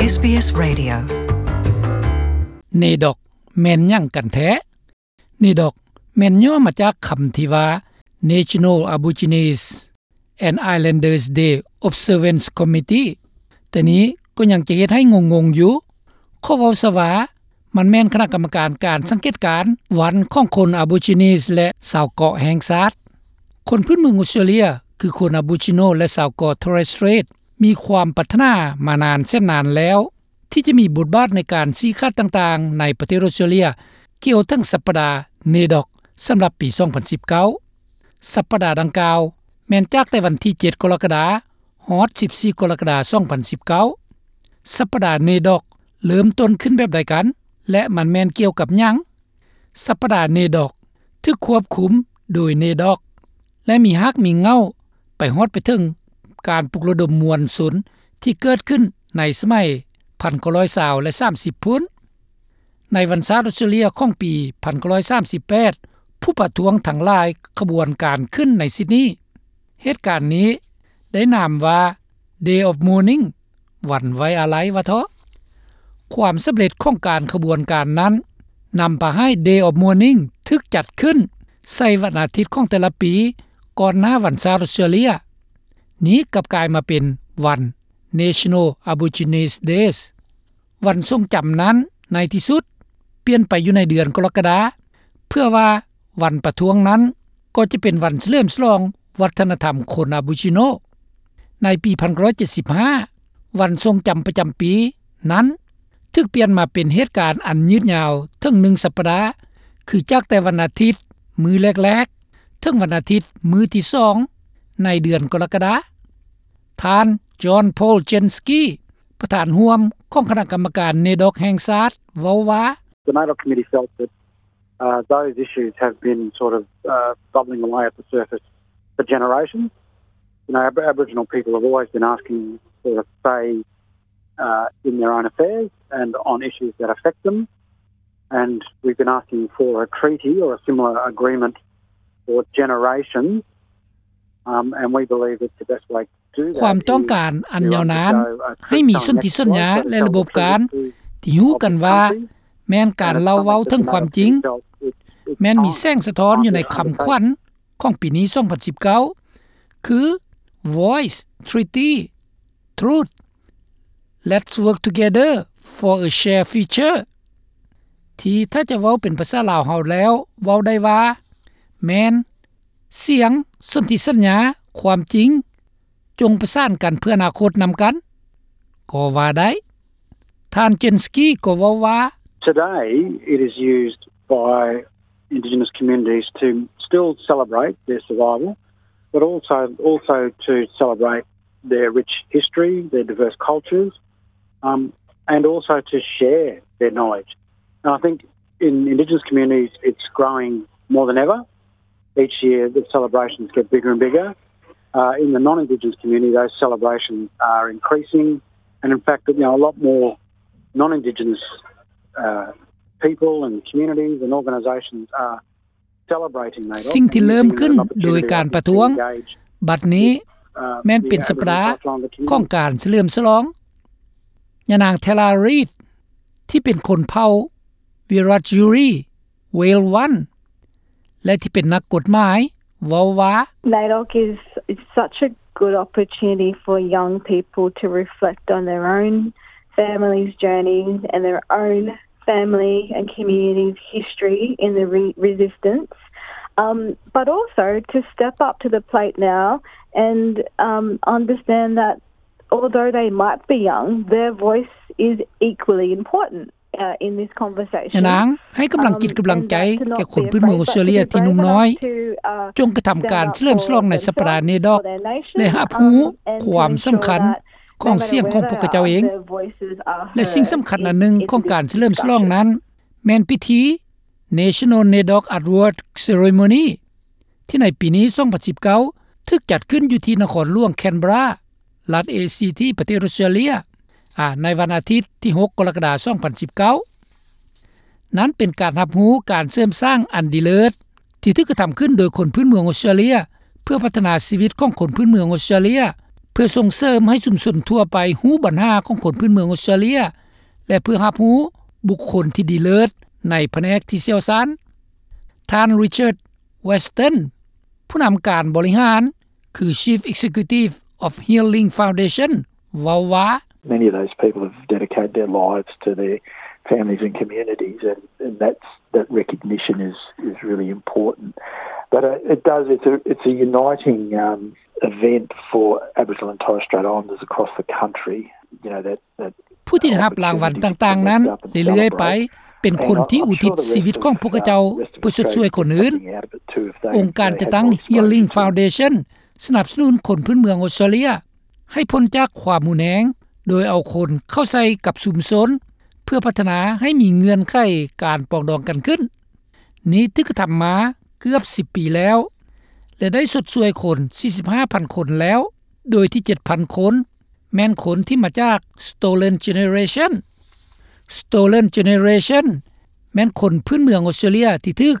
ເອສບີເອສ Radio. ເນດອກ ແມ່ນຫຍັງກັນແທ້? ເນດອກ ແມ່ນຫຍໍ້ມາຈາກຄຳທີ່ວ່າ National Aborigines and Islanders Day Observance Committee, ແຕ່ນີ້ກໍຍັງຈະເຮັດໃຫ້ງົງໆຢູ່. ຂໍເວົ້າຊະວ່າ ມັນແມ່ນຄະນະກຳມະການການສັງເກດການວັນຂອງຄົນອາໂບຈິນີສ ແລະ ຊາວເກາະແຫ່ງຊາດ. ຄົນພື້ນເມືອງອົດສະຕຣາເລຍ ຄືຄົນອາໂບຈິໂນ ແລະ ຊາວເກາະ Torres Strait ມີຄວາມປາດຖະໜາມານານແສນນານແລ້ວ ທີ່ຈະມີບົດບາດໃນການຊີ້ຂາດຕ່າງໆໃນປະເທດອົດສະຕຣາເລຍ ກ່ຽວເຖິງສັບປະດາ ເນດອກ ສຳລັບປີສອງພັນສິບເກົ້າ. ສັບປະດາດັ່ງກ່າວ ແມ່ນຈາກແຕ່ວັນທີເຈັດ ກໍລະກະດາ ຮອດສິບສີ່ ກໍລະກະດາ ສອງພັນສິບເກົ້າ. ສັບປະດາ ເນດອກ ເລີ່ມຕົ້ນຂຶ້ນແບບໃດກັນ ແລະ ມັນແມ່ນກ່ຽວກັບຫຍັງ? ສັບປະດາ ເນດອກ ຖືກຄວບຄຸມໂດຍ ເນດອກ ແລະ ມີຮາກມີເຫງົ້າໄປຮອດໄປເຖິງການປຸກລະດົມມວນຊົນທີ່ເກີດຂຶ້ນໃນສະໄໝພັນເກົ້າຮ້ອຍຊາວ ແລະ ສາມສິບພຸ້ນ. ໃນວັນຊາດອົດສະຕຣາເລຍຂອງປີພັນເກົ້າຮ້ອຍສາມສິບແປດ ຜູ້ປະທ້ວງທັງຫຼາຍຂະບວນການຂຶ້ນໃນຊິດນີ. ເຫດການນີ້ໄດ້ນາມວ່າ Day of Mourning ວັນໄວ້ອາໄລວ່າເທາະ. ຄວາມສຳເລັດຂອງການຂະບວນການນັ້ນ ນຳພາໃຫ້ Day of Mourning ຖືກຈັດຂຶ້ນໃສ່ວັນອາທິດຂອງແຕ່ລະປີ ກ່ອນໜ້າວັນຊາດອົດສະຕຣາເລຍ. ນີ້ກັບກາຍມາເປັນວັນ National Aborigines Days. ວັນຊົງຈຳນັ້ນໃນທີ່ສຸດປ່ຽນໄປຢູ່ໃນເດືອນກໍລະກະດາ ເພື່ອວ່າວັນປະທ້ວງນັ້ນກໍຈະເປັນວັນສະເຫຼີມສະຫຼອງວັດທະນະທຳຄົນອາໂບຈິໂນ. ໃນປີພັນເກົ້າຮ້ອຍເຈັດສິບຫ້າ ວັນຊົງຈຳປະຈຳປີນັ້ນຖືກປ່ຽນມາເປັນເຫດການອັນຍືດຍາວເຖິງໜຶ່ງສັບປະດາ ຄືຈາກແຕ່ວັນອາທິດມື້ແລກໆ ເຖິງວັນອາທິດມື້ທີສອງໃນເດືອນກໍລະກະດາ. ທ່ານ John Paul Jansky ປະທານຮ່ວມຂອງຄະນະກຳມະການ ເນດອກ ແຫ່ງຊາດ ເວົ້າວ່າ The NAIDOC committee felt that, uh, those issues have been sort of, uh, bubbling away at the surface for generations. You know, Ab-, Aboriginal people have always been asking for a say, uh, in their own affairs and on issues that affect them. And we've been asking for a treaty or a similar agreement for generations, um, and we believe that the best way ຄວາມຕ້ອງການອັນຍາວນານໃຫ້ມີສົນທິສັນຍາ ແລະ ລະບົບການທີ່ຮູ້ກັນວ່າແມ່ນການເລົ່າເວົ້າເຖິງຄວາມຈິງ ແມ່ນມີແສງສະທ້ອນຢູ່ໃນຄຳຂວັນຂອງປີນີ້ ສອງພັນສິບເກົ້າ ຄື Voice, Treaty, Truth, Let's Work Together for a Shared Future ທີ່ຖ້າຈະເວົ້າເປັນພາສາລາວເຮົາແລ້ວເວົ້າໄດ້ວ່າ ແມ່ນ ສຽງ, ສົນທິສັນຍາ, ຄວາມຈິງ, ຈົ່ງປະສານກັນເພື່ອອະນາຄົດນຳກັນ ກໍວ່າໄດ້. ທ່ານ Jansky ກໍເວົ້າວ່າ Today it is used by Indigenous communities to still celebrate their survival, but also, also to celebrate their rich history, their diverse cultures, um, and also to share their knowledge. And I think in Indigenous communities, it's growing more than ever. Each year, the celebrations get bigger and bigger. Uh, in the non-Indigenous community, those celebrations are increasing. And in fact, you know, a lot more non-Indigenous, uh, people and communities and organisations are ສິ່ງທີ່ເລີ່ມຂຶ້ນໂດຍການປະທ້ວງບັດນີ້ແມ່ນເປັນສັບປະດາຂອງການສະເຫຼີມສະຫຼອງ. ຍານາງ Tara Reid ທີ່ເປັນຄົນເຜົ່າ Wiradjuri Wale One ແລະ ທີ່ເປັນນັກກົດໝາຍ ເວົ້າວ່າ NAIDOC is, is such a good opportunity for young people to reflect on their own family's journey and their own family and community's history in the re-, resistance, um, but also to step up to the plate now and, um, understand that although they might be young, their voice is equally important, uh, in this conversation. ຍານາງໃຫ້ກຳລັງຈິດກຳລັງໃຈແກ່ຄົນພື້ນເມືອງອົດສະຕຣາເລຍທີ່ໜຸ່ມນ້ອຍ ຈົ່ງກະທຳການສະເຫຼີມສະຫຼອງໃນສັບປະດາ ເນດອກ ແລະ ຮັບຮູ້ຄວາມສຳຄັນ ຂອງສຽງຂອງພວກເຂົາເຈົ້າເອງ ແລະ ສິ່ງສຳຄັນອັນໜຶ່ງຂອງການສະເຫຼີມສະຫຼອງນັ້ນ ແມ່ນພິທີ National NAIDOC Award Ceremony ທີ່ໃນປີນີ້ ສອງພັນສິບເກົ້າ ຖືກຈັດຂຶ້ນຢູ່ທີ່ນະຄອນຫຼວງ Canberra ລັດ ACT ປະເທດອົດສະຕຣາເລຍ ອາ ໃນວັນອາທິດທີຫົກ ກໍລະກະດາ ສອງພັນສິບເກົ້າ. ນັ້ນເປັນການຮັບຮູ້ການເສີມສ້າງອັນດີເລີດ ທີ່ຖືກກະທຳຂຶ້ນໂດຍຄົນພື້ນເມືອງອົດສະຕຣາເລຍ ເພື່ອພັດທະນາຊີວິດຂອງຄົນພື້ນເມືອງອົດສະຕຣາເລຍ ເພື່ອສົ່ງເສີມໃຫ້ຊຸມຊົນທົ່ວໄປຮູ້ບັນຫາຂອງຄົນພື້ນເມືອງອອສເຕຣເລັຍ ແລະ ເພື່ອຮັບຮູ້ບຸກຄົນທີ່ດີເລີດໃນພະແນກທີ່ຊ່ຽວຊານ. ທ່ານ Richard Weston ຜູ້ນຳການບໍລິຫານ ຄື Chief Executive of Healing Foundation ເວົ້າວ່າ Many of those people have dedicated their lives to their families and communities, and, and that's, that recognition is, is really important. But, uh, it does, it's a, it's a uniting, um, event for Aboriginal and Torres Strait Islanders across the country, you know, that, that ຜູ້ທີ່ໄດ້ຮັບລາງວັນຕ່າງໆນັ້ນເລື້ອຍໆໄປ ເປັນຄົນທີ່ອຸທິດຊີວິດຂອງພວກເຂົາເຈົ້າເພື່ອຊົດຊ່ວຍຄົນອື່ນ. ອົງການຈັດຕັ້ງ Healing Foundation ສະໜັບສະໜູນຄົນພື້ນເມືອງອອສເຕຣເລັຍໃຫ້ພົ້ນຈາກຄວາມຮຸນແຮງ ໂດຍເອົາຄົນເຂົ້າໃສ່ກັບຊຸມຊົນ ເພື່ອພັດທະນາໃຫ້ມີເງື່ອນໄຂການປອງດອງກັນຂຶ້ນ. ນີ້ຖືກກະທຳມາເກືອບສິບປີແລ້ວ ແລະ ໄດ້ຊົດຊ່ວຍຄົນສີ່ສິບຫ້າພັນຄົນແລ້ວ, ໂດຍທີ່ເຈັດພັນຄົນ ແມ່ນຄົນທີ່ມາຈາກ Stolen Generation. Stolen Generation ແມ່ນຄົນພື້ນເມືອງອອສເຕຣເລັຍທີ່ຖືກ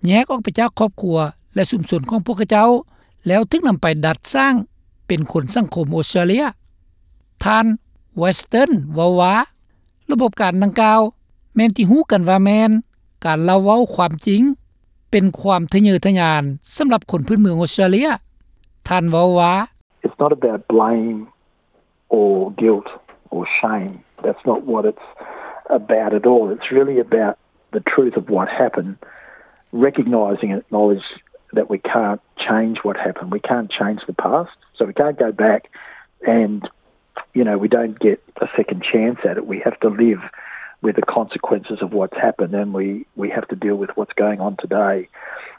ແຍກອອກໄປຈາກຄອບຄົວ ແລະ ຊຸມຊົນຂອງພວກເຂົາເຈົ້າ ແລ້ວຖືກນຳໄປດັດສ້າງເປັນຄົນສັງຄົມອອສເຕຣເລັຍ. ທ່ານ Weston ເວົ້າວ່າ ລະບົບການດັ່ງກ່າວ ແມ່ນທີ່ຮູ້ກັນວ່າແມ່ນການເລົ່າເວົ້າຄວາມຈິງ ເປັນຄວາມທະເຍີທະຍານສຳລັບຄົນພື້ນເມືອງອອສເຕຣເລັຍ. ທ່ານເວົ້າວ່າ It's not about blame or guilt or shame. That's not what it's about at all. It's really about the truth of what happened, recognising and acknowledge that we can't change what happened. We can't change the past, so we can't go back and, you know, we don't get a second chance at it. We have to live with the consequences of what's happened, and we, we have to deal with what's going on today.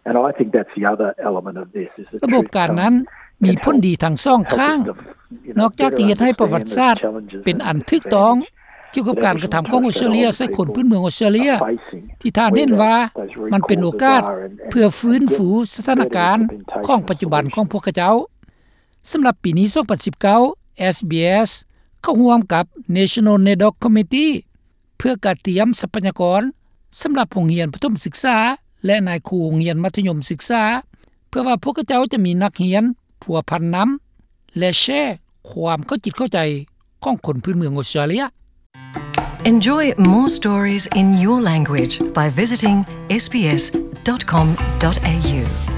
And I think that's the other element of this, is the ລະບົບການນັ້ນມີຜົນດີທັງສອງຂ້າງ. ນອກຈາກທີ່ເຮັດໃຫ້ປະຫວັດສາດເປັນອັນຖືກຕ້ອງ ກ່ຽວກັບການກະທຳຂອງອອສເຕຣເລັຍໃສ່ຄົນພື້ນເມືອງອອສເຕຣເລັຍ ທີ່ທ່ານເຫັນວ່າມັນເປັນໂອກາດເພື່ອຟື້ນຟູສະຖານະການຂອງປັດຈຸບັນຂອງພວກເຂົາເຈົ້າ. ສຳລັບປີນີ້ ສອງພັນສິບເກົ້າ ເອສບີເອສ ເຂົ້າຮ່ວມກັບ National NAIDOC Committee ເພື່ອກະຕຽມຊັບພະຍາກອນສຳລັບໂຮງຮຽນປະຖົມສຶກສາ ແລະ ນາຍຄູໂຮງຮຽນມັດທະຍົມສຶກສາ ເພື່ອວ່າພວກເຂົາເຈົ້າຈະມີນັກຮຽນພົວພັນນຳ ແລະ ແຊຄວາມເຂົ້າຈິດເຂົ້າໃຈຂອງຄົນພື້ນເມືອງອອສເຕຣເລັຍ. Enjoy more stories in your language by visiting S B S dot com dot A U.